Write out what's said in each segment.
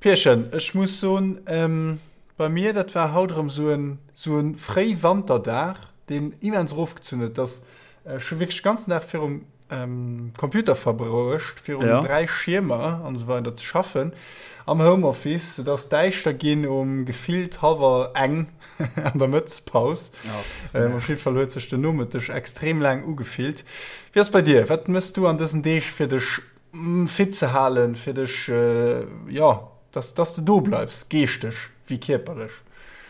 Pierchen, ech muss soen, bei mir, dat war haut erëm esou en, esou e Fréiwanterdag, deen immens erofgezunn huet, dass ech hu wierklech de ganzen Dag virum Computer verbruecht, virun ja. 3 Schiermer an esou weider ze schaffen, am Homeoffice, et ass däischter ginn um gefillt hallwer eng an der Mëttespaus. Ja. Op jidde Fall huet sech den Nomëtteg extrem laang ugefillt. Wéi ass bei dir? Wat mëss du an dësen Deeg fir dech fit ze halen, fir dech, jo, dass, dass de do bleifs, geeschteg wéi kierperlech?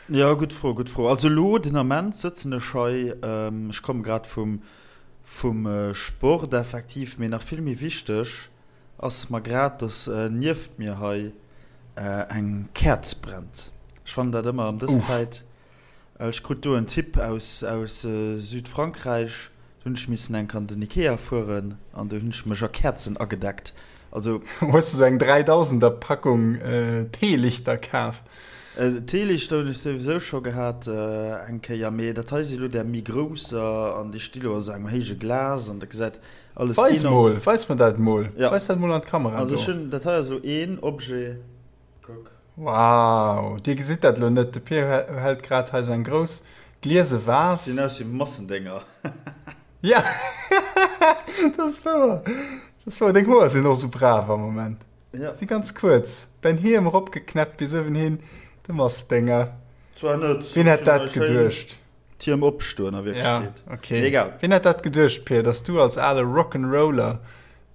Jo, gutt Fro, gutt Fro. Also elo den Ament sëtzen ech hei, ech komme grad vum, vum Sport effektiv, mee nach vill méi wichteg ass mer grad, dass nieft mir hei eng Käerz brennt. Ech fannen dat ëmmer ëm dës Zäit Ech krut do en Tipp aus aus Südfrankräich, do hunn ech missen enk an den Ikea fueren an do hunn ech mech a Käerzen agedeckt. Also. Hues de sou eng 3000er Packung Teelichter kaf? Teelichter hunn ech souwisou scho gehat eng Kéier, mee dat hei si lo där méi grousser an déi sti lo a sou engem héije Glas an dat gesäit alles Weis mol, weis mer dat mol, weis dat mol an d'Kamera do. Also ech hunn, dat hei ass lo een Objet, kuck. Wow, dir gesitt dat elo net, de Pir hält grad hei sou eng grouss gliese Vase. Gesinn aus wéi Massendénger. Ja, dat ass wouer, dat ass wouer. Deng Hoer sinn och sou brav am Moment. Ja. Si ganz kuerz. Däin Hiem eropgeknäppt bis uewenhin, de Massdénger. Zwar net. Wien hätt dat geduecht? D'Hiem opstoen a Wierklechkeet. Ja, okay. Egal. Wien hätt dat geduecht, Pir, dass du als ale Rock'n'Roller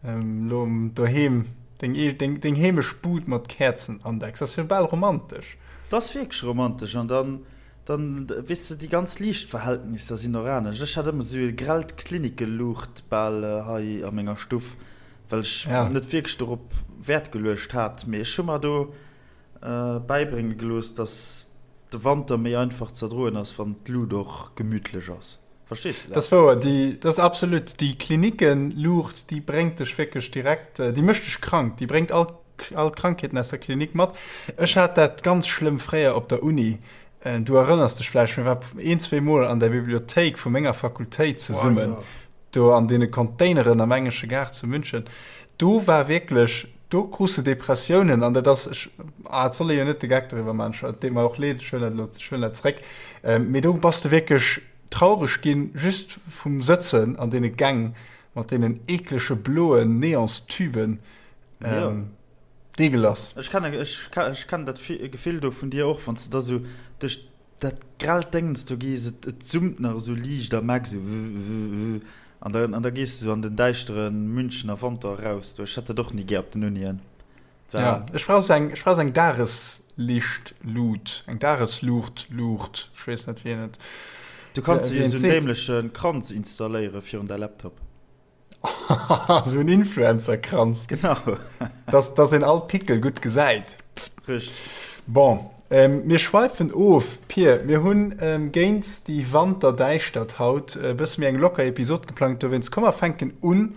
Lo doheem deng, deng, deng heemesch Bud mat Käerzen andecks, ass jo bal romantesch. Dat ass wierklech romantesch an dann, dann weess de, déi ganz Liichtverhältnisser sinn och anescht. Ech hat ëmmer esou e grellt Klinickeluucht bal hei a menger Stuff, well ech ja. net wierklech dorop Wäert geluecht hat. Mee ech hu mer do bäibrénge gelooss, dass de Wanter méi einfach z'erdroen ass, wann d'Lut och gemütlech ass. Verstees de dat? Dat ass wouer, déi, dat ass absolut, déi Klinikenluucht, déi bréngt dech wierklech direkt, déi mécht dech krank, déi bréngt all, all Krankheeten aus der Klinik mat. Ech hat dat ganz schlëmm fréier op der Uni, du erënners dech vläicht, mir war een, zweemol an der Bibliothéik vu menger Fakultéit zesummen, do an deene Containeren am Engesche Gaart zu München, do war wierklech, do krus de Depressiounen an dat ass, ech, ah, et soll ee jo net de Geck doriwwer maachen, et deet mer och leed, ech huelen dat elo, ech huelen dat zréck, mee do bass de wierklech, Traureg ginn just vum Sëtzen an deene Gäng mat deenen eeklege bloen Neonstuben. Deegelass. Ech kennen, ech kennen dat Gefill do vun dir och, wann s de da sou duerch dat grellt Déngens do gees, et et summt nach esou liicht am Eck, sou wuh-wuh-wuh, an da an da gees de sou an den däischtere Münchener Wanter eraus do. Ech hätt dat och ni gär op den Unien. Ja, ech brauch sou eng, ech brauch sou eng Dageslichtlut, eng Dagesluucht, Luucht, ech weess net wéi een et. Du kanns dir jo sou en dämleche Kranz installéiere virun däi Laptop. Sou en Influencer-Kranz. Genau. Dass, dass een all Pickel gutt gesäit. Richteg. Bon, mir schweifen of, Pir. Mir hunn géint déi Wanterdäischtert haut e bësse méi eng locker Episod geplangt, dowéinst komm mer fänken un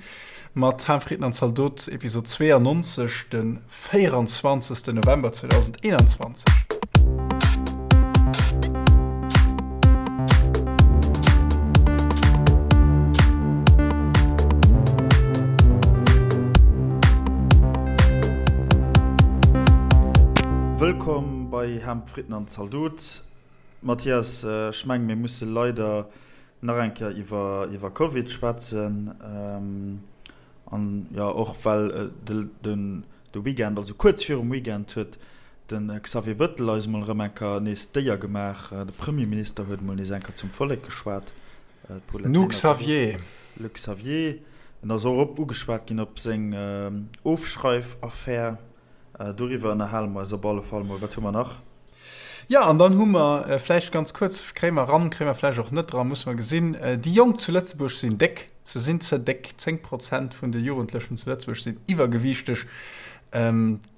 Mat Ham, Fritten an Zaldot, Episod 92, de 24. November 2021. Wëllkomm bei Ham, Fritten an Zaldot. Mathias, ech mengen, mir musse leider Nach eng Kéier iwwer iwwer Covid schwätzen an jo och well den de Weekend, also kuerz virum Weekend huet de Xavier Bëttel eis mol erëm eng Kéier nees d'Éier gemaach. De Premierminister huet mol nees eng Kéier zum Vollek geschwat. D'Paulette Lenert. Xavier. Le Xavier. En ass och op ugeschwat ginn op seng Ofschreifaffär. Doriwwer ënnerhale mer eis op alle Fall mol. Wat hu mer nach? Jo, an dann hu mer vläicht ganz kuerz, kréie mer eran, kréie mer vläicht och net eran, musse mer gesinn, déi Jonk zu Lëtzebuerg sinn déck, se sinn ze déck. 10 Prozent vun de Jugendlechen zu Lëtzebuerg sinn iwwergewiichteg.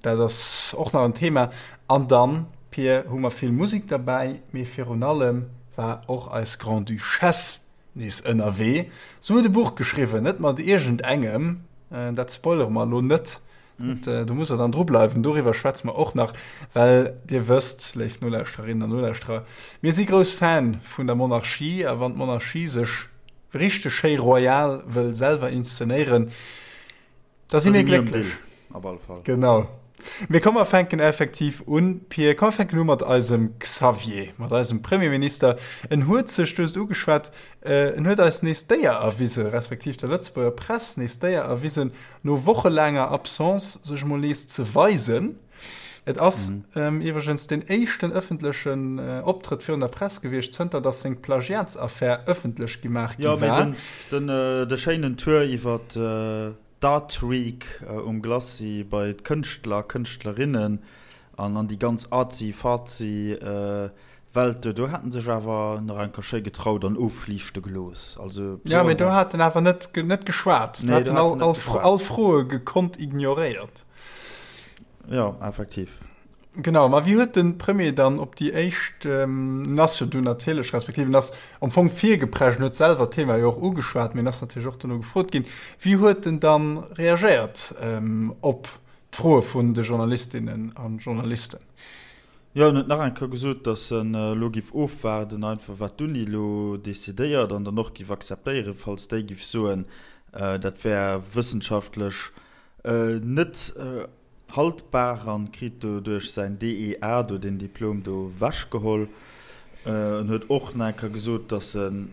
Dat ass och nach en Thema. An dann, Pir, hu mer vill Musek derbäi, mee virun allem war och eis Grande-Duchesse nees ënnerwee. Se huet e Buch geschriwwen, net mat iergendengem, dat spoilere mer elo net, Do musst der dann dru bleiwen. Doriwwer schwätze mer och nach, well Dir wësst, léif Nolauschterinnen an Nolauschterer, mir si grouss Fan vun der Monarchie a wann d'Monarchie sech richteg schéi royal wëll selwer inszenéieren, da si mir glécklech. Op alle Fall. Genau. Mee komm mer fänken effektiv un, Pir. Komm mer fänken u mat eisem Xavier, mat eisem Premierminister. En huet sech, du hues et ugeschwat, en huet eis nees d'Éier erwisen, respektiv der Lëtzebuerger Press nees d'Éier erwisen, no wochelaanger Absence sech emol nees ze weisen. Et ass iwwregens deen éischten ëffentlechen Optrëtt virun der Press gewiescht, zënter datt seng Plagiatsaffär ëffentlech gemaach gi war. Jo, mee den, de schéinen Tour iwwer d'Art Week um Glacis bei d'Kënschtler, Kënschtlerinnen an an déi ganz artsy-fartsy Welt do, do hat en sech awer nach eng Kéier schéi getraut an ofliichte gelooss. Also, ja, mee do hat en awer net, net geschwat. Do hat en all, all, all Froe gekonnt ignoréiert. Jo, effektiv. Genau, ma wéi huet de Premier dann op déi éischt, en ass jo dunn natierlech, respektiv en ass am Fong virgeprescht, en huet selwer d'Thema jo och ugeschwat, mee en ass natierlech och dono gefrot ginn, wéi huet en dann reagéiert op d'Froe vun de Journalistinnen a Journalisten? Jo, en huet nach eng Kéier gesot, datt en elo giff ofwaarden einfach wat d'Uni elo decidéiert an dann och giff akzeptéieren, falls déi giff soen, dat wär wëssenschaftlech net haltbar an kritt doduerch säin DEA do, deen Diplom do wechgeholl. En huet och nach eng Kéier gesot, datt en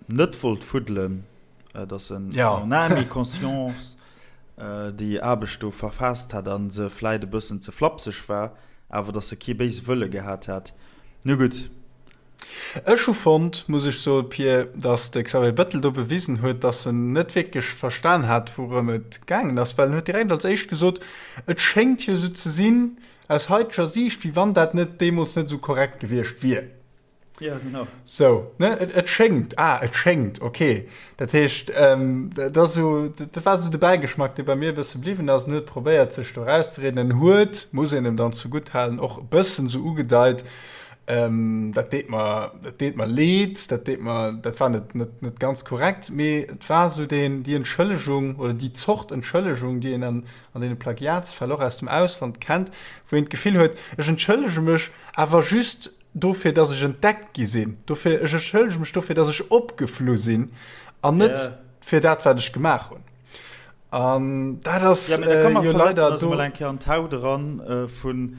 net wollt fuddelen, datt en en âme et conscience déi Aarbecht do verfaasst hätt a se vläit e bëssen ze flapseg war, awer datt e kee béise Wëlle gehat hätt. Nu gutt. Ech hu fonnt, muss ech soen, Pir, datt de Xavier Bettel do bewisen huet, datt en net wierklech verstan hat, wourëm et gaangen ass, well en huet direkt als éischt gesot, et schéngt jo esou ze sinn, aus haiteger Siicht, wéi wann dat net deemools net esou korrekt gewiescht wier. Ja, genau. Sou, ne, et, et schéngt, ah, et schéngt, okay. Dat heescht, dat ass esou, dat war esou de Bäigeschmack, dee bei mir e bësse bliwwen ass. En huet probéiert, sech do erauszereden. En huet, muss een em dann zegutthalen, och e bëssen esou ugedeit, Dat deet mer, dat deet mer leed, dat deet mer, dat war net, net, net ganz korrekt, mee et war esou deen, déi Entschëllegung oder déi Zort Entschëllegung, déi een an, an deene Plagiatsfäll och aus dem Ausland kennt, wou een d'Gefill huet, ech entschëllege mech awer just dofir, dass ech entdeckt gi sinn, dofir, ech entschëllege mech dofir, dass ech opgeflu sinn an net fir dat, wat ech gemaach hunn. An dat ass ja, äh, jo leider do. Mol eng Kéier an d'Haut eran äh, vun,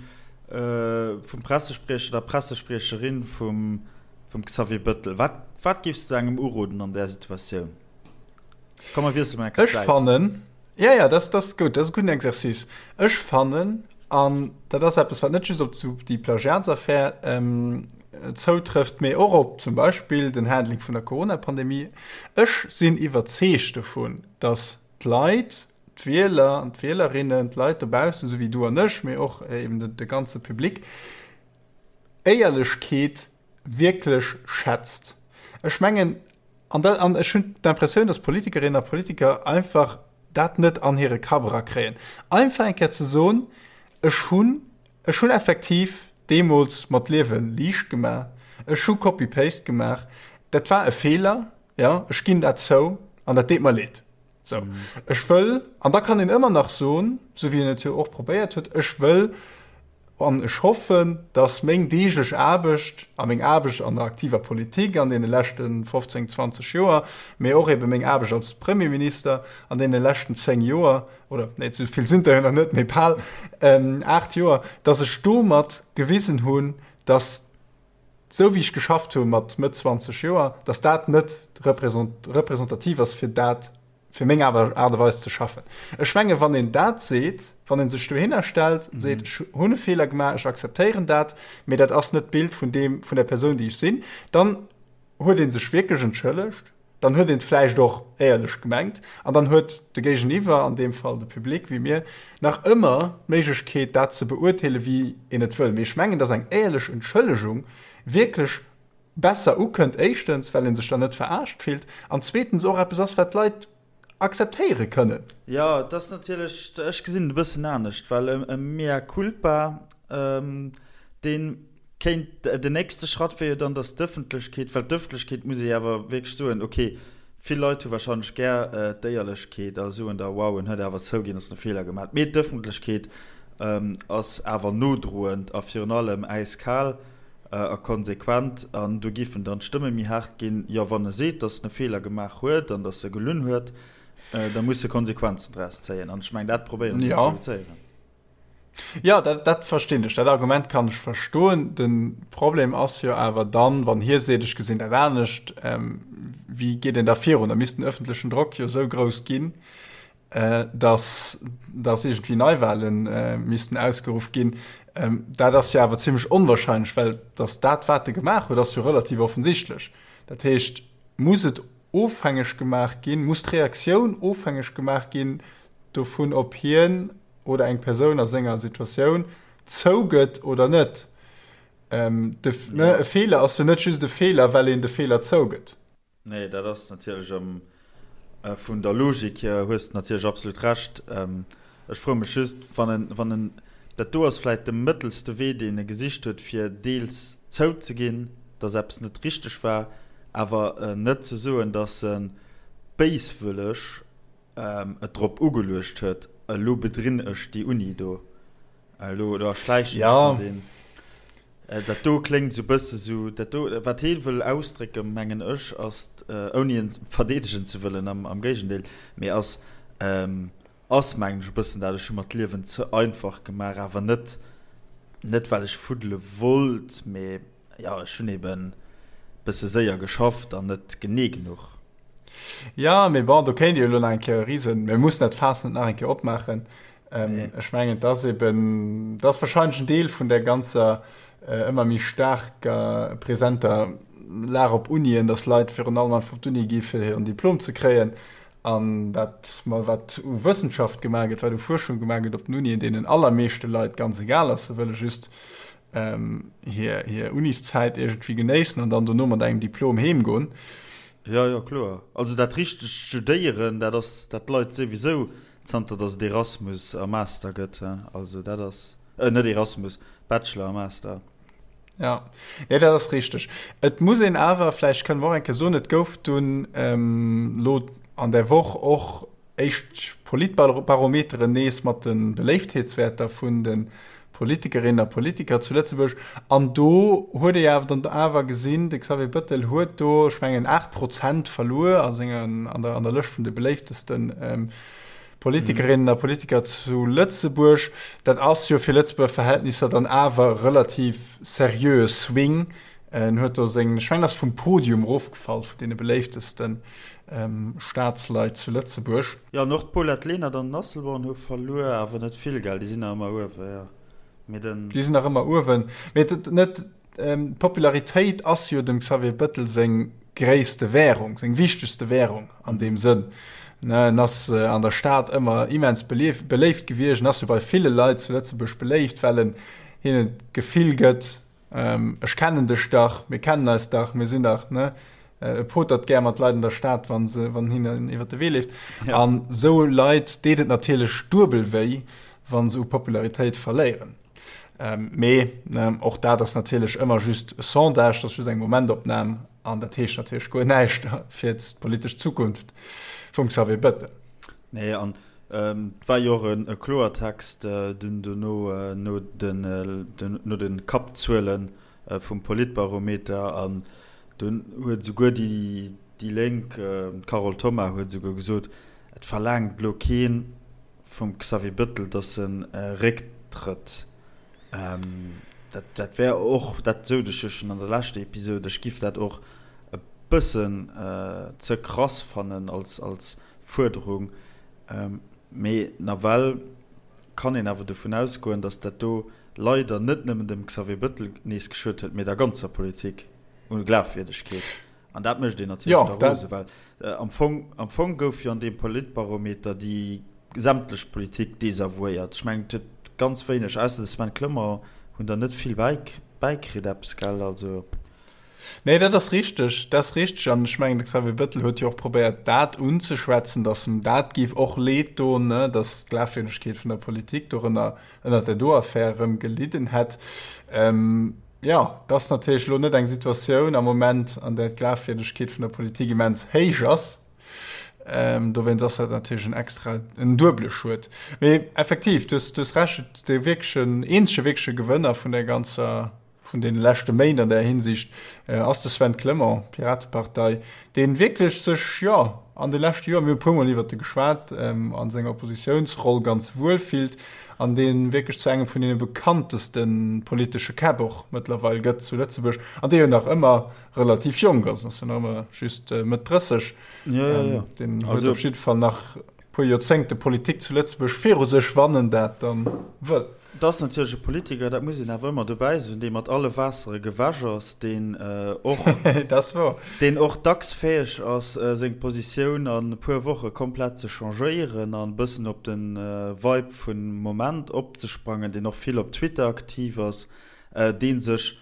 äh, vum Pressespriecher der Pressespriecherin vum, vum Xavier Bëttel. Wat, wat giffs du engem uroden an där Situatioun? Komm, mer wiessele mol eng Kéier Ech fannen, ja, ja, das, das ist gut, das ist e gudden Exercice. Ech fannen, an dat ass eppes, wat net just op zu déi Plagiatsaffär ähm, zoutrëfft, mee och op zum Beispill den Handling vun der Corona-Pandemie, ech sinn iwwerzeegt dovun, dass d'Leit, d'Wieler an d'Wielerinnen, d'Leit dobaussen, esou wéi du an ech, mee och eben de ganze Public, Éierlechkeet wierklech schätzt. Ech mengen, an dat, an ech hunn d'Impressioun, dass Politikerinnen a Politiker einfach dat net an hire Kapp erakréien, einfach eng Kéier ze soen, ech hunn, ech hunn effektiv deemools mer d'Liewe liicht gemaach, ech hu Copy-Paste gemaach, dat war e Feeler, Jo, ech ginn dat zou an dat deet mer leed. Sou, ech wëll, an da kann een ëmmer nach soen, sou wéi en et jo och probéiert huet, ech wëll an ech hoffen, datt meng deeglech Aarbecht a meng Aarbecht an der aktiver Politik an deene leschte 15, 20 Joer, mee och ebe meng Aarbecht als Premierminister an deene leschten 10 Joer, oder nee, esou vill sinn der jo nach net, mee bal 8 Joer, datt ech domat gewisen hunn, datt esou wéi ech geschafft hu mat Mëtt 20 Joer, datt dat net representativ ass fir dat, fir meng Aart a Weis ze schaffen. Ech menge wann een dat seet, wann ee sech dohinner stellt, seet ech hunn e Feeler gemaach, ech akzeptéieren dat, mee dat ass net d'Bild vun deem, vun der Persoun déi ech sinn, dann huet ee sech wierklech entschëllegt. Dann huet een et vläicht och éierlech gemengt an dann huet de Géigeniwwer, an deem Fall de Public wéi mir, nach ëmmer d'Méiglechkeet, dat ze beurteelen, wéi een et wëll. Mee ech mengen, dass eng éierlech Entschëllegung wierklech besser ukënnt, éischtens, well ee sech dann net verarscht fillt an zweetens och eppes ass, wat d'Leit akzeptéiere kënnen. Jo, et ass natierlech, ech gesinn et e bëssen anescht, well e Mea culpa, dee kéint, den nächste Schratt wier jo dann, datt d'Ëffentlechkeet, well d'Ëffentlechkeet, muss ee awer wierklech soen, okay, vill Leit hu warscheinlech gär d'Éierlechkeet a soen da, wow, en huet awer zouginn, datt en e Feeler gemaach huet, mee d'Ëffentlechkeet ass awer nodroend a virun allem äiskal. A konsequent, an do giffen dann d'Stëmme méi haart ginn, jo, wann e seet, datt en e Feeler gemaach huet an datt e gelunn huet, da muss e Konsequenzen draus zéien. An ech mengen, dat probéiere se ze reduzéieren. Jo, dat, dat verstinn ech. Dat Argument kann ech verstoen. De Problem ass jo awer dann, wann hie seet, ech gesinn dat anescht, wéi geet een da virun? Da misst den öffentlechen Drock jo esou grouss ginn, dass, dass iergendwéi Neiwale missten ausgeruff ginn. Dat ass jo awer zimmlech onwahrscheinlech, well dass dat, wat e gemaach huet, ass jo relativ offensichtlech. Dat heescht, muss et ofhängeg gemaach ginn, muss d'Reaktioun ofhängeg gemaach ginn dovun, ob hien oder eng Persoun a senger Situatioun zougëtt oder net. Ähm, de, ne, e Feeler ass jo net just e Feeler, well een de Feeler zougëtt. Nee, dat ass natierlech am, äh, vun der Logik hier hues de natierlech absolut Recht. Ähm, ech froe mech just, wann en, wann en, dat do ass vläit de mëttelste Wee, deen e gesicht huet, fir deels zouzeginn, dass eppes net richteg war, awer net ze soen, dass e béiswëlleg et drop ugeluecht huet, elo bedrinn ech déi Uni do, elo elo erschläichen ech mer deen. Dat do kléngt esou e bësse sou, dat do, wat hee wëll ausdrécken, mengen ech, ass, ouni en verdeedegen ze wëllen, am Géigendeel, mee ass, ass mengen ech e bëssen dat, ech hu mer d'Liewen ze einfach gemaach, awer net, net well ech fuddele wollt, mee jo, ech hunn eben bësse séier geschafft an net genee genuch. Jo, mee bon, do kéint ee jo elo nach eng Kéier e Risen, mir mussen dat Faass net nach eng Kéier opmaachen. Ähm, ech mengen, et ass eben, dat ass wahrscheinlech en Deel vun der ganzer äh, ëmmer méi staarker presenter Lag op Unien, dass Leit virun allem einfach op d'Uni gi fir hiren Diplom ze kréien an dat mal wat u Wëssenschaft gemaach gëtt, wat u Fuerschung gemaach gëtt op den Unien, deenen allermeeschte Leit ganz egal ass. Se wëlle just ähm, hir, hir Uniszäit iergendwéi genéissen an dann dono mat engem Diplom heemgoen. Jo, jo, kloer. Also dat richtegt Studéieren, dat ass, dat leit souwisou zanter datt et Erasmus a Master gëtt. Also dat ass, äh, net Erasmus, Bachelor a Master. Ja, nee, dat ass richteg. Et muss een awer, vläicht kënne mer och eng Kéier soen, et gouf dunn ähm, lo an der Woch och éischt Politbarometeren nees mat de Beléiftheetswäerter vun de Politikerinnen a Politiker zu Lëtzebuerg. An do huet ee awer dann awer gesinn, de Xavier Bëttel huet do, ech mengen, 8 Prozent verluer a sengen, an der, an der Lëscht vun de beléiftesten Politikerinnen a Politiker zu Lëtzebuerg. Dat ass jo fir Lëtzebuerger Verhältnisser dann awer relativ seriöe Swing. En huet do seng, ech mengen, ass vum Podium erofgefall vun deene beléiftesten Staatsleit zu Lëtzebuerg. Jo, an och d'Paulette Lenert an den Asselborn hu verluer, awer net vill, gell? Déi sinn nach ëmmer uewen, jo. Mee den. Déi sinn nach ëmmer uewen. Mee et, net, d'Popularitéit ass jo dem Xavier Bettel seng gréisste Währung, seng wichtegste Währung an deem Sënn. Ne, en ass an der Stad ëmmer immens beléift gewiescht, en ass jo bei ville Leit zu Lëtzebuerg beléift, well en hinnen d'Gefill gëtt, Ech kennen dech dach, mir kennen eis dach, mir sinn dach, ne? E potert gär mat Leit an der Stad, wann se, wann hinnen iwwer de Wee leeft. Ja. An sou Leit deet et natierlech duebel wéi, wann se u Popularitéit verléieren. Ähm, mee ne, och dat ass natierlech ëmmer just e Sondage, dat ass just eng Momentopnam an dat heescht natierlech guer näischt fir d'politesch Zukunft vum Xavier Bettel. Nee, an Et war jo och e Kloertext dunn dono no de Kappzuele vum Politbarometer an dunn huet esouguer déi Lénk, d'Carole Thoma huet esouguer gesot, et verlaangt elo kee vum Xavier Bettel, datt e récktrëtt. Dat wär och, dat sot ech jo schonn an der leschter Episode, ech giff dat och e bëssen ze krass fannen als Fuerderung. Mee nawell kann een awer dovun ausgoen, datt dat do leider net nëmmen dem Xavier Bettel nees geschuet huet, mee der ganzer Politik u Glafwierdegkeet. An dat mécht een natierlech da rose, well am Fong, am Fong gouf jo an deem Politbarometer déi sämtlech Politik desavouéiert. Ech mengen, et huet ganz wéineg, ausser de Sven Clement, hunn der net vill bäikritt eppes, gell? Also. Nee, dat ass richteg, dat ass richteg. An ech mengen, de Xavier Bettel huet jo och probéiert, dat unzeschwätzen, datt em dat géif och leed doen, ne, datt d'Glafwierdegkeet vun der Politik dorënner, ënnert där do Affär erëm gelidden hätt. Jo, et ass natierlech elo net eng Situatioun am Moment, an där d'Glafwierdegkeet vun der Politik immens héich ass. Dowéinst ass dat natierlech en extra, en duebele Schued. Mee effektiv, du hues, du hues Recht, dee wierklechen, eenzege wierkleche Gewënner vun där ganzer. vun deene leschte Méint an där Hinsicht ass de Sven Clement, Piratepartei, dee wierklech sech, jo, an de leschte Joer, mir hu e puermol iwwert e geschwat, a senger Oppositiounsroll ganz wuel fillt an dee wierklech zu engem vun deene bekannteste politesche Käpp och mëttlerweil gëtt zu Lëtzebuerg an dee jo nach ëmmer relativ jonk ass, ass jo nach ëmmer just Mëtt 30. Deen huet op jidde Fall nach puer Joerzéngte Politik zu Lëtzebuerg viru sech, wann en dat dann wëll. Et ass natierlech e Politiker, dat muss een awer ëmmer dobäi soen, dee mat alle Waassere gewäsch ass, deen och, Dat ass wouer. deen och dacks fäeg ass, seng Positioun an e puer Woche komplett ze changéieren an e bëssen op de Vibe vum Moment opzesprangen, deen och vill op Twitter aktiv ass, dee sech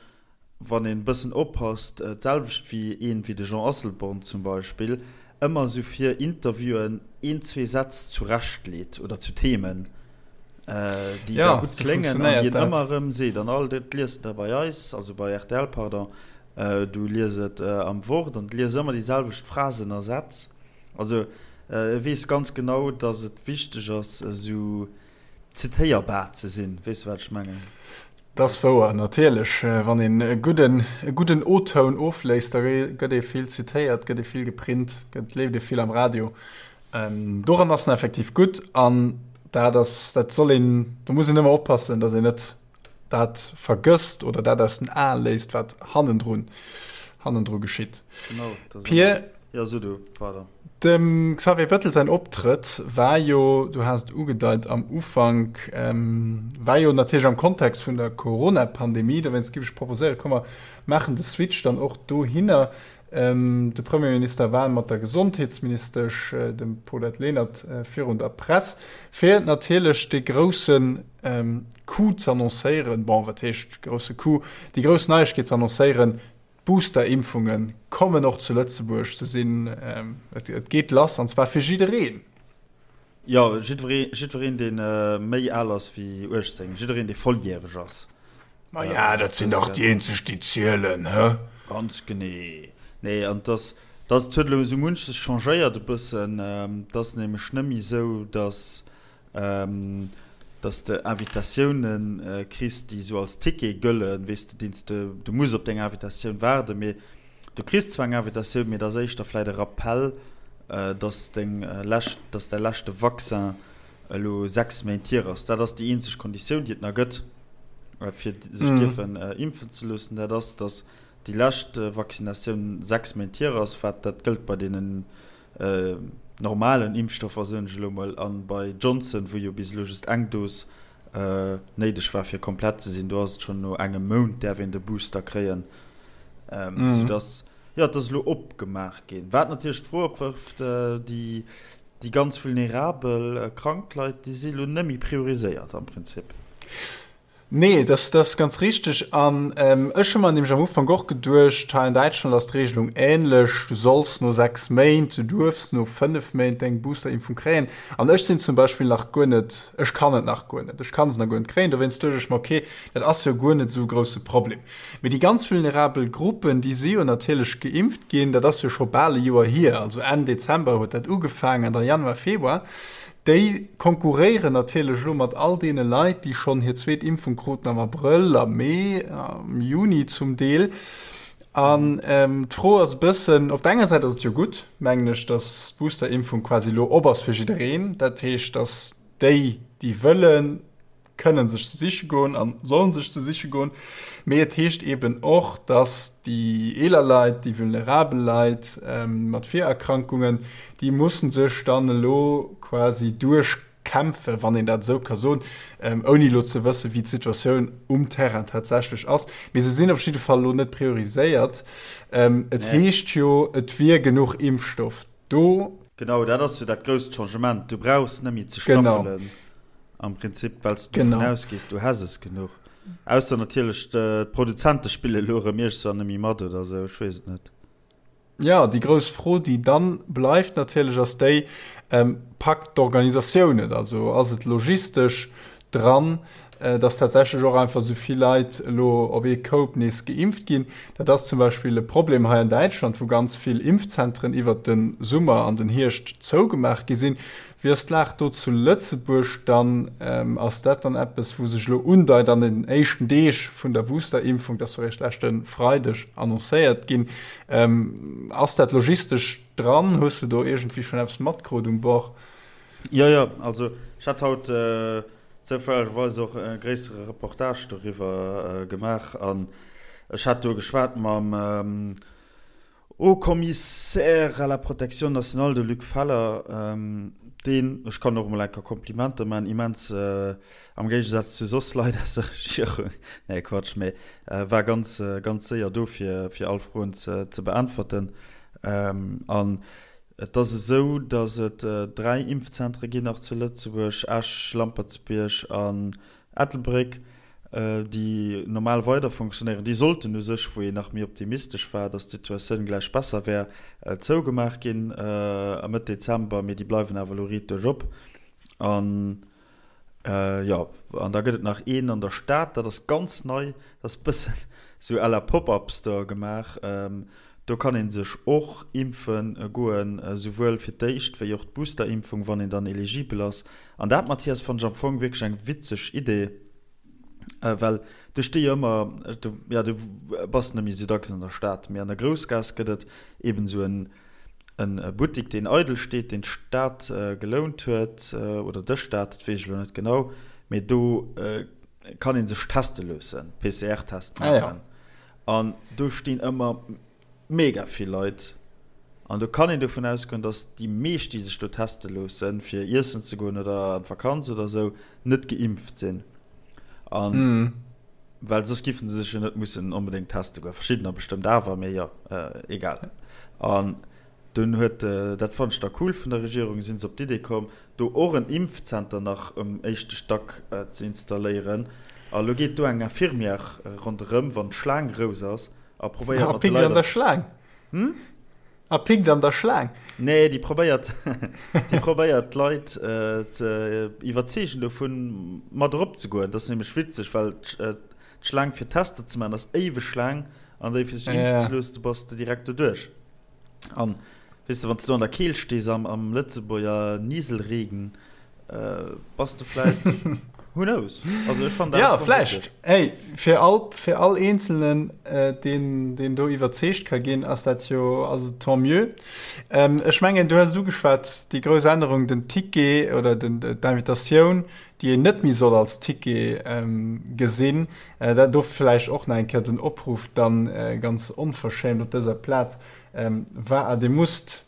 wann een e bëssen oppasst, d'selwecht wéi een wéi de Jean Asselborn zum Beispill, ëmmer esou fir Interviewen een, zwee Sätz zurecht leet oder zu Themen, déi da gutt kléngen an déi en ëmmer erëm seet. An all dat liest de bei eis, also bei rtl, pardon, du lies et am Wort an du lies ëmmer déi selwecht Phrasen a Sätz. Also e weess ganz genau, datt et wichteg ass, esou zitéierbar ze sinn. Weess de, wat ech mengen? Dat ass wouer, natierlech. Wann een e gudden, e gudden O-Toun ofléisst, da gëtt ee vill zitéiert, gëtt ee vill geprint, gëtt, leeft ee vill am Radio. Doran ass en effektiv gutt an dat ass, dat soll een, do muss een ëmmer oppassen, datt een net dat vergësst oder dat aus den Ae léisst, wat hannendrun, hannendru geschitt. Genau, dat ass Pir, Ja, so du, pardon. Dem Xavier Bettel säin Optrëtt war jo, du has et ugedeit am Ufank, war jo natierlech am Kontext vun der Corona-Pandemie. Dowéinst géif ech proposéieren, komm mer maachen de Switch dann och dohinner. De Premierminister war mat der Gesondheetsministesch, dem Paulette Lenert, virun der Press, fir natierlech dee grousse Coup z'annoncéieren, bon, wat heescht grousse Coup, déi grouss Neiegkeet z'annoncéieren, D'Booster-Impfunge kommen och zu Lëtzebuerg. Se sinn, et geet lass, an zwar fir jiddereen. Jo, jiddweree, jiddwereen, dee méi al ass wéi 18, jiddereen, dee volljäreg ass. Maja, dat sinn dach déi eenzeg, déi zielen, hë? Ganz genee. Nee, an et ass, et ass, et huet elo esou munches changéiert e bëssen. Et ass nämlech net méi esou, datt dass de Invitatiounen kriss, déi esou als Ticket gëllen, weess de, deen s de, du muss op deng Invitatioun waarden, mee du kriss zwar eng Invitatioun, mee et ass éischter vläit e Rappell, dass deng lescht, dass däi leschte Vaccin elo 6 Méint hier ass. Dat ass déi eenzeg Konditioun, déi et nach gëtt, fir sech dierfen impfen ze loossen, dat ass, dass déi lescht Vaccinatioun 6 Méint hier ass, wat dat gëllt bei deenen normalen Impfstoffer, soen ech elo mol, an bei Johnson, wou jo bis elo just eng Dos néideg war fir komplett ze sinn, do ass et schonn no engem Mount däerf een de Booster kréien, sou dass, jo, et ass elo opgemaach ginn. Wat natierlech d'Fro opwërft, déi déi ganz vulnerabel krank Leit, déi si elo net méi prioriséiert am Prinzip. Nee, dat ass ganz richteg. An ech hu mer nämlech am Ufank och geduecht, hei an Däitschland ass d'Regelung änlech, du solls no 6 Méint, du duerfs no 5 Méint deng Boosterimpfung kréien. An ech sinn zum Beispill nach guer net, ech kann et nach guer net, ech kann se nach guer net kréien. Dowéinst duecht ech mer, okay, dat ass jo guer net esou e grousse Problem. Mee déi ganz vulnerabel Gruppen, déi si jo natierlech geimpft ginn, dat ass jo scho bal e Joer hier, also Enn Dezember huet dat ugefaangen, da Januar, Februar. Déi konkurréieren natierlech elo mat all deene Leit, déi schonn hir zweet Impfung kruten am Abrëll, am Mee, am Juni zum Deel. An d'Fro ass e bëssen, op der enger Säit ass et jo gutt, mengen ech, datt d'Boosterimpfung quasi elo op ass fir jiddereen. Dat heescht, datt déi, déi wëllen, kënnen sech se siche goen a sollen sech se siche goen. Mee et heescht eeben och, dass déi eeler Leit, déi vulnerabel Leit mat Virerkrankungen, déi mussen sech dann elo quasi duerchkämpfen, wann een dat esou ka soen, ouni elo ze wëssen, wéi d'Situatioun um Terrain tatsächlech ass. Mee se sinn op jidde Fall elo net prioriséiert. Et heescht jo, et wier genuch Impfstoff do. Genau, dat ass jo dat grousst Changement. Du brauchs net méi ze staffelen am Prinzip, well s de dovun ausgees, du häss es genuch. Ausser natierlech d'Produzente spille elo erëm iergendwann net méi mat oder esou, ech weess et net. Jo, déi grouss Fro, déi dann bleift natierlech, ass déi, Packt d'Organisatioun et? Also ass et logistesch dran? Dass tatsächlech och einfach esou vill Leit elo op ee Koup nees geimpft ginn. Dat ass zum Beispill e Problem hei an Däitschland, wou ganz vill Impfzentren iwwert de Summer an den Hierscht zougemaach gi sinn. Wéi ass d'Lag do zu Lëtzebuerg dann? Ass dat dann eppes, wou sech elo undeit an den éischten Deeg vun der Boosterimpfung, dat ass jo eréischt leschte Freideg annoncéiert ginn, ass dat logistesch dran? Hues du do iergendwéi schonn eppes matkrut um Bord? Jo, jo, also ech hat haut zoufällegerweis och e gréissere Reportage doriwwer gemaach an ech hat do geschwat mam Haut Commissaire à la protection nationale, de Luc Feller, deen, ech kann och emol eng Kéier Komplimenter maachen, immens, am Géigesaz zu soss Leit aus der Regierung, nee Quatsch, mee war ganz, ganz séier do fir, fir all Froen ze, ze beäntwerten. An Et ass esou, datt et 3 Impfzentere ginn nach zu Lëtzebuerg, Esch, Lampertsbierg an Ettelbréck, déi normal weider fonctionnéieren. Déi sollten u sech, wou een nach méi optimistesch war, datt d'Situatioun gläich besser wär, zougemaach ginn a Mëtt Dezember, mee déi bleiwen awer elo riit duerch op. An jo, an da gëtt et nach een an der Stad, dat ass ganz nei, dat ass e bëssen esou à la Pop-up Store gemaach. Do kann ee sech och impfe goen, esouwuel fir d'éischt wéi och d'Boosterimpfung, wann een dann eligibel ass. An dat, Mathias, fannen ech am Fong wierklech eng witzeg Idee, well do sti jo ëmmer, jo, du bass net méi esou dacks an der Stad, mee an der Groussgaass gëtt et eben esou en e Buttik, deen eidel steet, deen d'Stad gelount huet, oder de Staat, dat weess ech elo net genau, mee do kann ee sech teste loossen, PCR-Test maachen. An do stinn ëmmer mega vill Leit. An do kann een dovun ausgoen, datt déi meescht, déi sech do teste loossen, fir iessen ze goen oder an d'Vakanz oder esou, net geimpft sinn. An well soss giffen se sech jo net mussen onbedéngt teste goen. Verschiddener bestëmmt awer, mee jo, egal. An Dunn huet, dat fannen ech da cool vun der Regierung, si se op d'Idee komm, do och en Impfzenter nach um éischte Stack ze installéieren. A lo geet do eng Infirmière ronderëm, wann d'Schlaang grouss ass, a probéiert mat de Leit. A pikt an der Schlaang? Hm? A pikt an der Schlaang? Nee, déi probéiert, déi probéiert d'Leit ze iwwerzeegen dovun, mat erop ze goen. Dat ass nämlech witzeg, well d'Schlaang fir Tester ze maachen ass éiweg laang, an déi fir sech impfen ze loossen, do bass de direkt doduerch. An weess de, wann s du an der Keelt stees am, am Lëtzebuerger Nieselregen, äh, bass de vläit, who knows? Also ech fannen dat Ja, vläicht. Hey, fir all, fir all Eenzelnen, äh, deen, deen do iwwerzeegt ka ginn, ass dat jo, ass et tant mieux. Ähm, ech mengen, du hues et ugeschwat, déi grouss Ännerung, den Ticket oder den, d'Invitatioun, déi een net méi soll als Ticket ähm, gesinn. Dat do vläicht och nach eng Kéier den Opruff dann ganz onverschämt op dëser Plaz, Wa Dir musst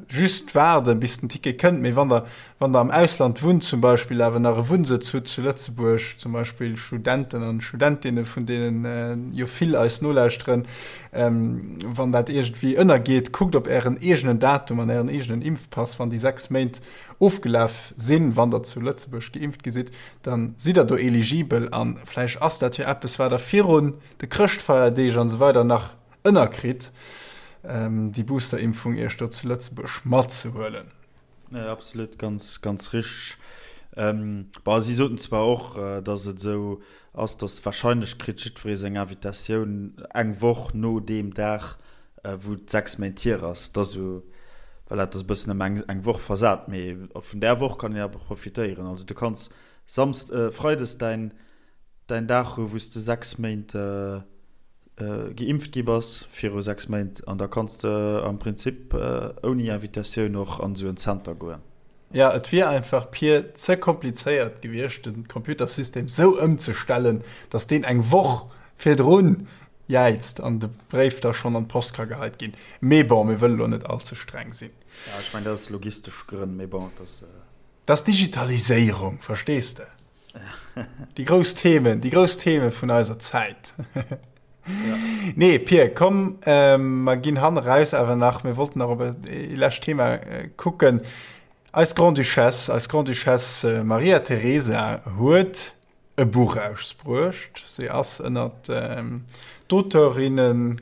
just waarden, bis den Ticket kënnt, mee wann Der, wann Der am Ausland wunnt zum Beispill, awer nach e Wunnsëtz hutt zu Lëtzebuerg, zum Beispill Studenten an Studentinne vun deenen jo vill eis nolauschteren, wann dat iergendwéi ënnergeet, kuckt op Ären eegenen Datum an Ären eegenen Impfpass, wann déi 6 Méint ofgelaf sinn, wann Der zu Lëtzebuerg geimpft gi sidd, dann sidd der do eligibel an vläicht ass dat jo eppes wat der virun de Chrëschtfeierdeeg an esou weider nach ënnerkritt, déi Boosterimpfung iech do zu Lëtzebuerg matzehuelen. Nee, absolut, ganz, ganz richteg. Bon, si soten zwar och, dass et esou ass, dass wahrscheinlech kritt jiddweree seng Invitatioun eng Woch no deem Dag, wou et 6 Méint hier ass. Dat ass esou, voilà, dat ass e bëssen ëm eng, eng Woch versat, mee vun där Woch kann een awer profitéieren. Also du kanns Samsd-, Freides däin, däin Dag hu wou s de 6 Méint geimpft gi bass, viru 6 Méint, an da kanns de am Prinzip ouni Invitatioun och an esou en Zenter goen. Jo, et wier einfach pir ze komplizéiert gewiescht, de Computersystem sou ëmzestellen, datt deen eng Woch virdrun jäizt an de Bréif da schonn an d'Post ka geheit ginn. Mee bon, mir wëlle lo net all ze streng sinn. Ja, ech mengen, dat ass logistesch Grënn, mee bon, et ass. Dat ass Digitaliséierung, verstees de? Déi grouss Themen, déi grouss Theme vun eiser Zäit. Ja. Nee, Pir, komm, ähm, mer ginn han eraus awer nach, mir wollten nach op e lescht Thema äh, kucken. Eis Grande-Duchesse, eis Grande-Duchesse äh, Maria Teresa huet e Buch ausbruecht. Si ass ënnert ähm, d'Auteurinnen.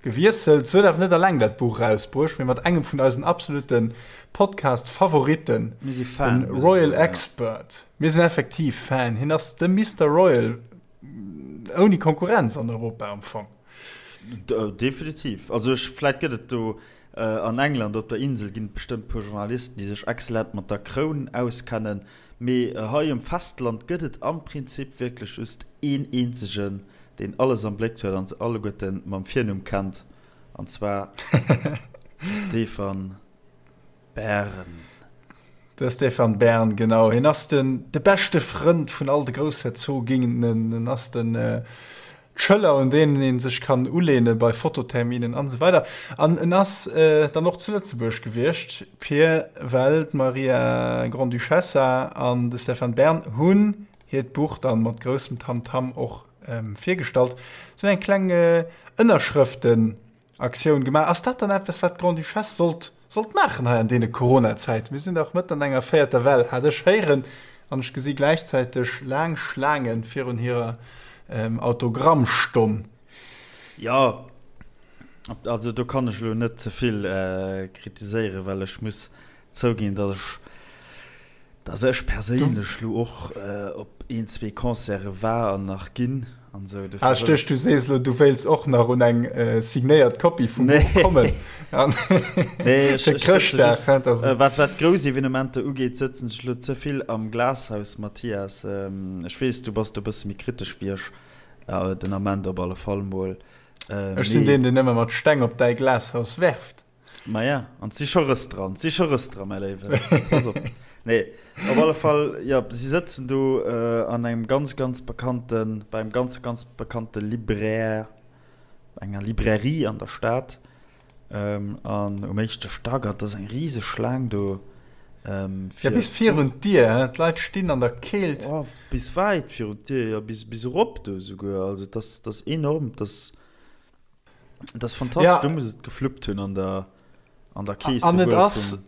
Gewiesselt. Se huet awer net alleng dat Buch erausbruecht, mee mat engem vun eisen absolute Podcast-Favoritten, den Royal Expert. Mir sinn effektiv Fan. Hien ass de Mister Royal ouni Konkurrenz an Europa am Fong. Definitiv. Also ech, vläit gëtt et do an England op der Insel ginn et bestëmmt puer Journalisten, déi sech exzellent mat der Kroun auskennen, mee hei um Festland gëtt et am Prinzip wierklech just een eenzegen, deen alles am Bléck huet an se alleguerten mam Virnumm kennt, an zwar de Stefan Bern. De Stefan Bern, genau. Hien ass den, de beschte Frënd vun all de Groussherzoginnen. En ass den d'Schëller, un deenen ee sech kann uleene bei Fototerminen an esou weider. An en ass dann och zu Lëtzebuerg gewiescht, Pir, well d'Maria Grande-Duchessa an de Stefan Bern hunn hiert Buch dann mat groussem Tamtam och virgestallt. Se hunn eng kleng Ënnerschrëftenaktioun gemaach. Ass dat dann eppes, wat d'Grande-Duchesse sollt, sollt maachen hei an deene Corona-Zäiten? Mir sinn dach mëtten an enger véierter Well, hat ech héieren, an ech gesi gläichzäiteg laang Schlaange virun hirer Autogrammstonn. Jo, also do kann ech elo net ze vill kritiséieren, well ech muss zouginn, datt ech Dass ech perséinlech lo och op een, zwee Concerte war an nach ginn an sou. Ah, ech duecht, du sees lo, du wéilts och nach un eng signéiert Kopie vum Buch kommen. Nee, ech, ech sëtze just, wat, wat grouss Evenementer ugeet, sëtzen ech lo ze vill am Glashaus, Mathias. Ech weess, du bass do e bësse méi kritesch wéi ech, den Ament op alle Fall mol. Ech sinn deen, deen ëmmer mat Steng op däi Glashaus werft. Maja, an 't si scho Rëss dran, 't si scho Rëss dran, mäi Léiwen. Pass op. Nee, op alle Fall, jo, si sëtzen do an engem ganz, ganz bekannten, bei engem ganz, ganz bekannte Libraire, enger Librairie an der Stad, an um éischte Stack, an 't ass eng riseg Schlaang do, fir. Ja, bis virun d'Dier, hein, d'Leit stinn an der Keelt. Oh, bis wäit virun d'Dier, jo, bis, bis erop do esouguer. Also, 't ass, 't ass enorm, 't ass. Dat ass fantastesch, ja. Du muss et gefluppt hunn an der, an der Kees. An et ass,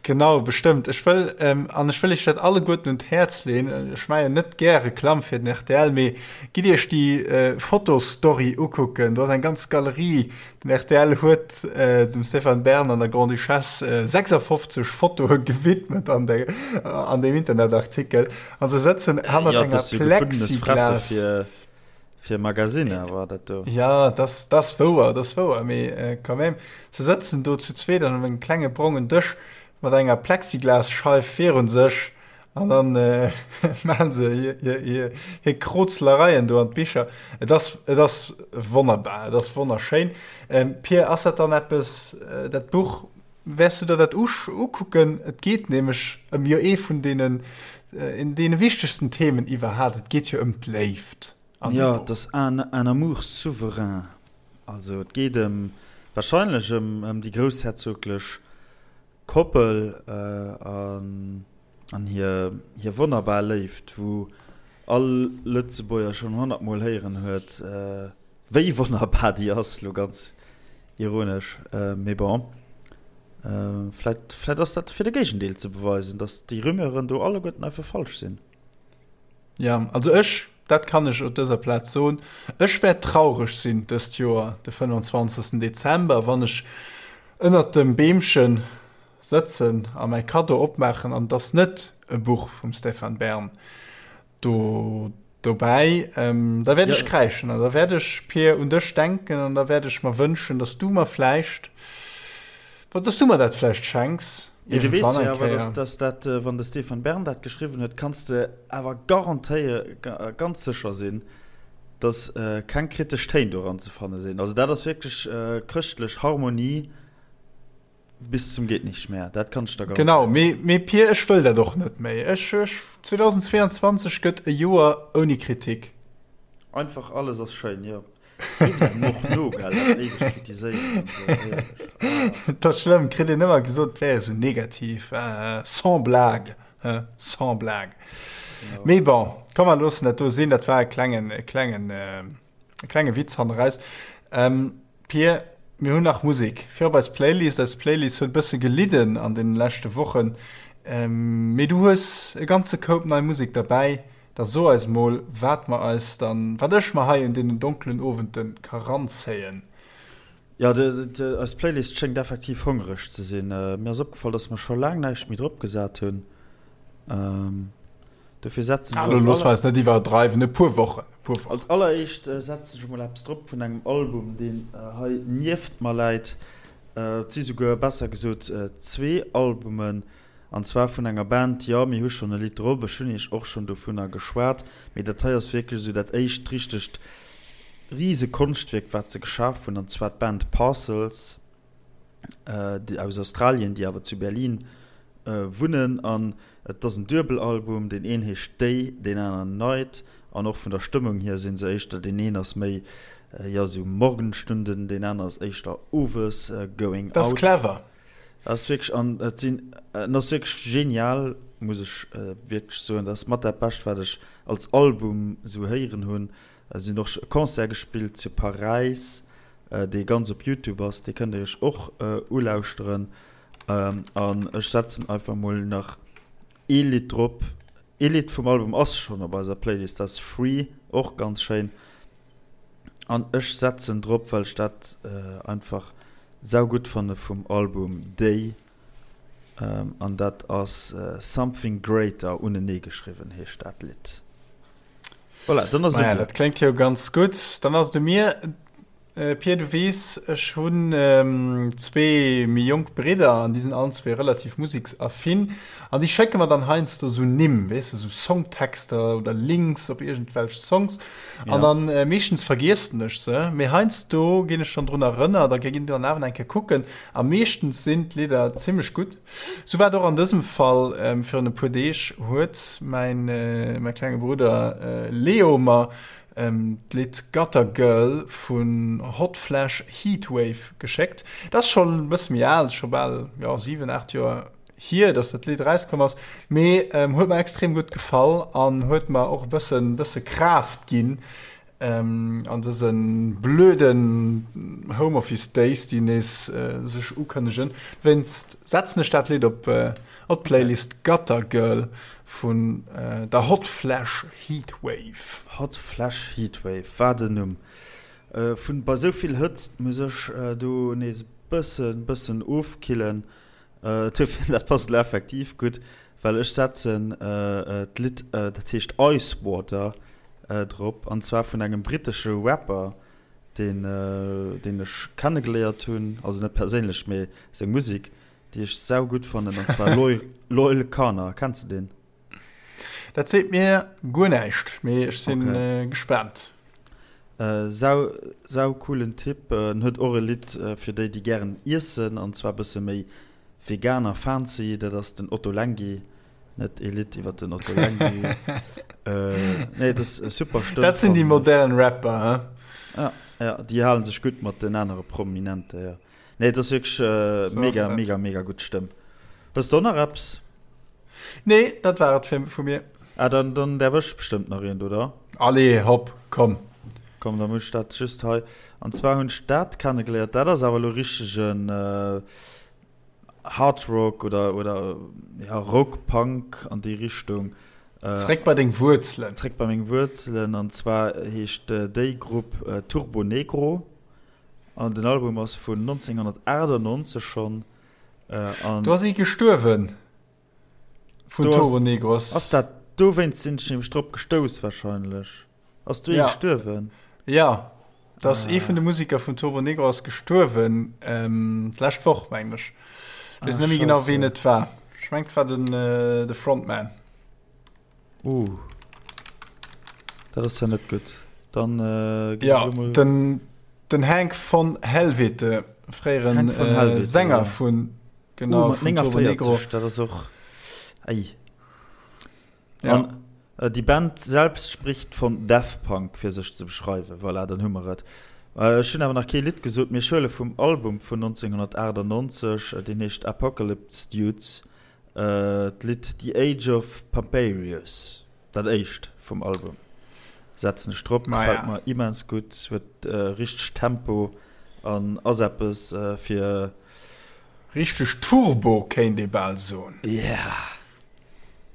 genau, bestëmmt. Ech wëll, ähm, an ech wëll iech dat alleguerten un d'Häerz leen. Ech maache jo net gär Reklamm fir den rtl, mee gitt iech déi äh, Fotostory ukucken. Do ass eng ganz Galerie. Den rtl huet äh, dem Stéphane Bern an der Grande-Duchesse äh, 56 Fotoe gewidmet an, der, an dem Internetartikel. An se sëtzen hannert ja, enger Plexiglas. Fir Magasinner war dat do. Ja, das, das wouer, das wouer, mee äh, quand même, se sëtzen do zu zweet an engem klenge brongen Dësch mat enger Plexiglasscheif virun sech an dann äh, maachen se hir, hir, hir, hir Krozlereien do an d'Bicher. Et ass, et ass wonnerbar, et ass wonnerschéin. Ähm, Pir, ass dat dann eppes, äh, dat Buch, wäers du der dat usch, ukucken? Et geet nämlech ëm jo ee vun deenen, äh, deene wichtegsten Themen iwwerhaapt, et geet jo ëm d'Léift. Jo, et ass un un amour souverain. Also et geet ëm, wahrscheinlech ëm ëm déi groussherzoglech Koppel an an hir hir wonnerbar Léift, wou all Lëtzebuerger schonn honnertmol héieren huet, wéi wonnerbar déi ass, lo ganz ironesch, mee bon, vläit vläit ass dat fir de Géigendeel ze beweisen, datt déi Rumeuren do alleguerten einfach falsch sinn. Ja, also ech, dat kann ech op dëser Plaz soen, ech wäert traureg sinn dëst Joer de 25. Dezember, wann ech ënnert dem Beemche sëtzen a mäi Kaddo opmaachen an et ass net e Buch vum Stéphane Bern do dobäi. Da wäert ech kräischen an da wäert ech, Pir, un dech denken an da wäert ech mer wënschen, dass du mer vläicht, dass du mer dat vläicht schenks. Mee du weess jo awer, dass, dass dat, wann de Stéphane Bern dat geschriwwen huet, kanns de awer garantéier, ganz sécher sinn, dass keng kritesch Téin doran ze fanne sinn. Also dat ass wierklech chrëschtlech Harmonie bis zum Gehtnichtmehr, dat kann ech der garantéieren. Genau, mee, mee Pir, ech wëll dat och net méi. Ech, ech, 2022 gëtt e Joer ouni Kritik. Einfach alles ass schéin, jo. Dat ass schlëmm, kritt een ëmmer gesot, et wär esou negativ. Sans blague, hein, sans blague. Mee bon, komm mer loossen dat do sinn, dat war e klengen, e klengen, e klenge Witz hanneraus. Pir, mir hunn nach Musek fir op eis Playlist. Eis Playlist huet e bësse gelidden an deene leschte Wochen, mee du hues e ganze Koup nei Musek derbäi. Da so eis mol, wat mer eis dann, wat ech mer hei un deenen donkelen Owenden ka ranzéien. Jo, eis Playlist schéngt effektiv hongereg ze sinn. Mir ass opgefall, dass mer scho laang näischt méi drop gesat hunn. Dofir setzen ech als aller. Looss mer eis net iwwerdreiwen, e puer Wochen, e puer Wochen. Als alleréischt setzen ech emol eppes drop vun engem Album, deen hei nieft mer läit. Et si souguer, besser gesot, zwee Albumen, an zwar vun enger Band, jo, mir hu schonn e Lidd drop, ech hunn iech och schonn dovunner geschwat, mee dat hei ass wierklech esou dat éischt richtegt rise Konschtwierk wat se geschaf hunn, an zwar d'Band Parcels déi aus Australien, déi awer zu Berlin wunnen. An et ass en Duebelalbum, deen een heescht Day, deen aneren Night. An och vun der Stëmmung hier si se éischter, deen een ass méi jo esou Morgenstunden, deen aner ass éischter owes, Going Out. Dat ass clever. Dat ass wierklech, an et sinn, en ass wierklech genial, muss ech wierklech soen. Dat ass mat dat Bescht wat ech als Album esou héieren hunn. Si hunn och e Concert gespillt zu Paräis, dee ganz op Youtube ass. Dee kënnt Dir Iech och ulauschteren. An ech setzen einfach mol nach ee Lidd drop. Ee Lidd vum Album ass schonn op eiser Playlist, dat ass Free, och ganz schéin. An ech setzen drop, well ech dat einfach saugutt fanne vum Album Day. An dat ass Something Greater, uneneegeschriwwen heescht dat Lidd. Voilà, dann ass et un dir. Dat kléngt jo ganz gutt. Dann ass et u mir. Pir, du weess, ech hunn zwee méi jonk Bridder an déi sinn allen zwee relativ museksaffin an déi schécke mer dann heiansdo esou Nimm, weess de, esou Songtexter oder Links op iergendwelch Songs. An dann meeschtens vergiessen ech se, mee heiansdo ginn ech dann drun erënnert a ginn dann awer eng Kéier kucken a meeschtens sinn d'Lidder zimmlech gutt. Sou war et och an dësem Fall. Virun e puer Deeg huet mäin klenge Brudder Leo mer d'Lidd Gutter Girl vun Hot Flash Heatwave geschéckt. Dat ass schonn e bësse méi al, scho bal jo 7, 8 Joer hier, dass dat Lidd erauskomm ass, mee huet mer extrem gutt gefall an huet mer och e bëssen, bësse Kraaft ginn, An dëse blöden Home Office Days, déi nees sech ukënnegen, wéinst setzen ech dat Lidd op d'Playlist Gutter Girl vun der Hot Flash Heatwave. Hot Flash Heatwave, wat en Numm! Vun bei sou vill Hëtzt muss ech do nees e bëssen bëssen ofkillen. Duerfir, dat passt elo effektiv gutt, well ech setzen d'Lidd, dat heescht Ice Water, drop, an zwar vun engem brittesche Rapper, deen, deen ech kennegeléiert hunn, also net perséinlech, mee seng Musek, déi ech saugutt fannen, an zwar Loyle Carner. Kenns de deen? Dat seet mir guer näischt, mee ech si gespaant. Sau, sau coolen Typ. En huet och e Lidd fir déi, déi gären iessen, an zwar bësse méi vegan a fancy, dat ass den Ottolenghi. Net e Lidd iwwer den Ottolenghi. Nee, dat ass e super Stëmm. Dat sinn déi modern Rapper, he? Ja, ja, déi hale sech gutt mat den anere Prominente, jo. Nee, dat ass wierklech mega, mega, mega gutt Stëmm. Hues de och nach eppes? Nee, dat war et vu mir. Ah, dann, dann därf ech bestëmmt nach eent, oder? Allez, hopp, komm. Komm, da muss ech dat just hei. An zwar hunn ech dat kennegeléiert, dat ass awer elo richtegen Hard Rock oder, oder ja, Rock, Punk an déi Richtung. Zréck bei deng Wuerzelen. Zréck bei meng Wuerzelen. An zwar heescht déi Grupp Turbonegro. An den Album ass vun 1998 schonn. An Do ass ee gestuerwen vun Turbonegros. Ass dat dowéinst sinn ech nämlech drop gestouss wahrscheinlech. Ass do ee ja. gestuerwen? Ja, dat ass ee vun de Musiker vun Turbonegro ass gestuerwen ähm, d'lescht Woch mengen ech. Ech weess net méi genau ween et war. Ech mengt et war den, äh, de Frontman. Uh. Dat ass ja net gutt. Dann äh, ja, den, den Hank von Helvete, fréieren Hank von Helvete, äh, Sänger ja. vun genau, uh, vun 49, dat ass och ei. Ja. An, äh, die Band selbst spricht von Death Punk fir sech ze beschreiwen. Voilà, dann hu mer et. Äh, ech hunn awer nach kee Lidd gesot. Mir huele vum Album vun 1998, äh, deen heescht Apocalypse Dudes. D'Lidd The Age of Pamperius, dat éischt vum Album, setzen ech drop. Gefält mer immens gutt, huet richteg Tempo an ass eppes fir. Richteg Turbo kéint ee bal soen. Yeah!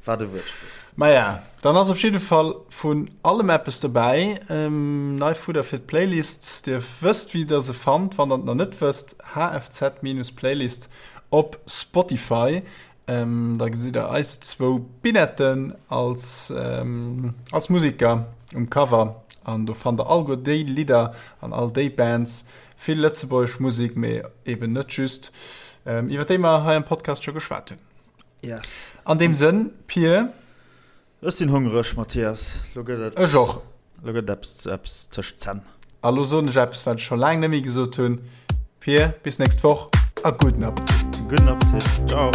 Wat e Wuertspill. Maja, dann ass op jidde Fall vun allem eppes dobäi. Nei Fudder fir d'Playlist. Dir wësst wéi der se fannt. Wann der et nach net wësst, HFZ-Playlist op Spotify. Da gesitt der eis zwou Binetten als, als Musiker um Cover. An do fannt der alleguer déi Lidder an all déi Bands. Vill lëtzebuergesch Musek, mee eben net just, iwwer déi mer hei am Podcast scho geschwat hunn. Yes. An deem Sënn, Pir. Ech sinn hongereg, Mathias. Lo gëtt et. Ech och. Lo gëtt et eppes, eppes tëscht d'Zänn. A lo soen ech eppes, wat ech scho laang net méi gesot hunn. Pir, bis nächst Woch a gudden Appetit. Gudden Appetit. Ciao.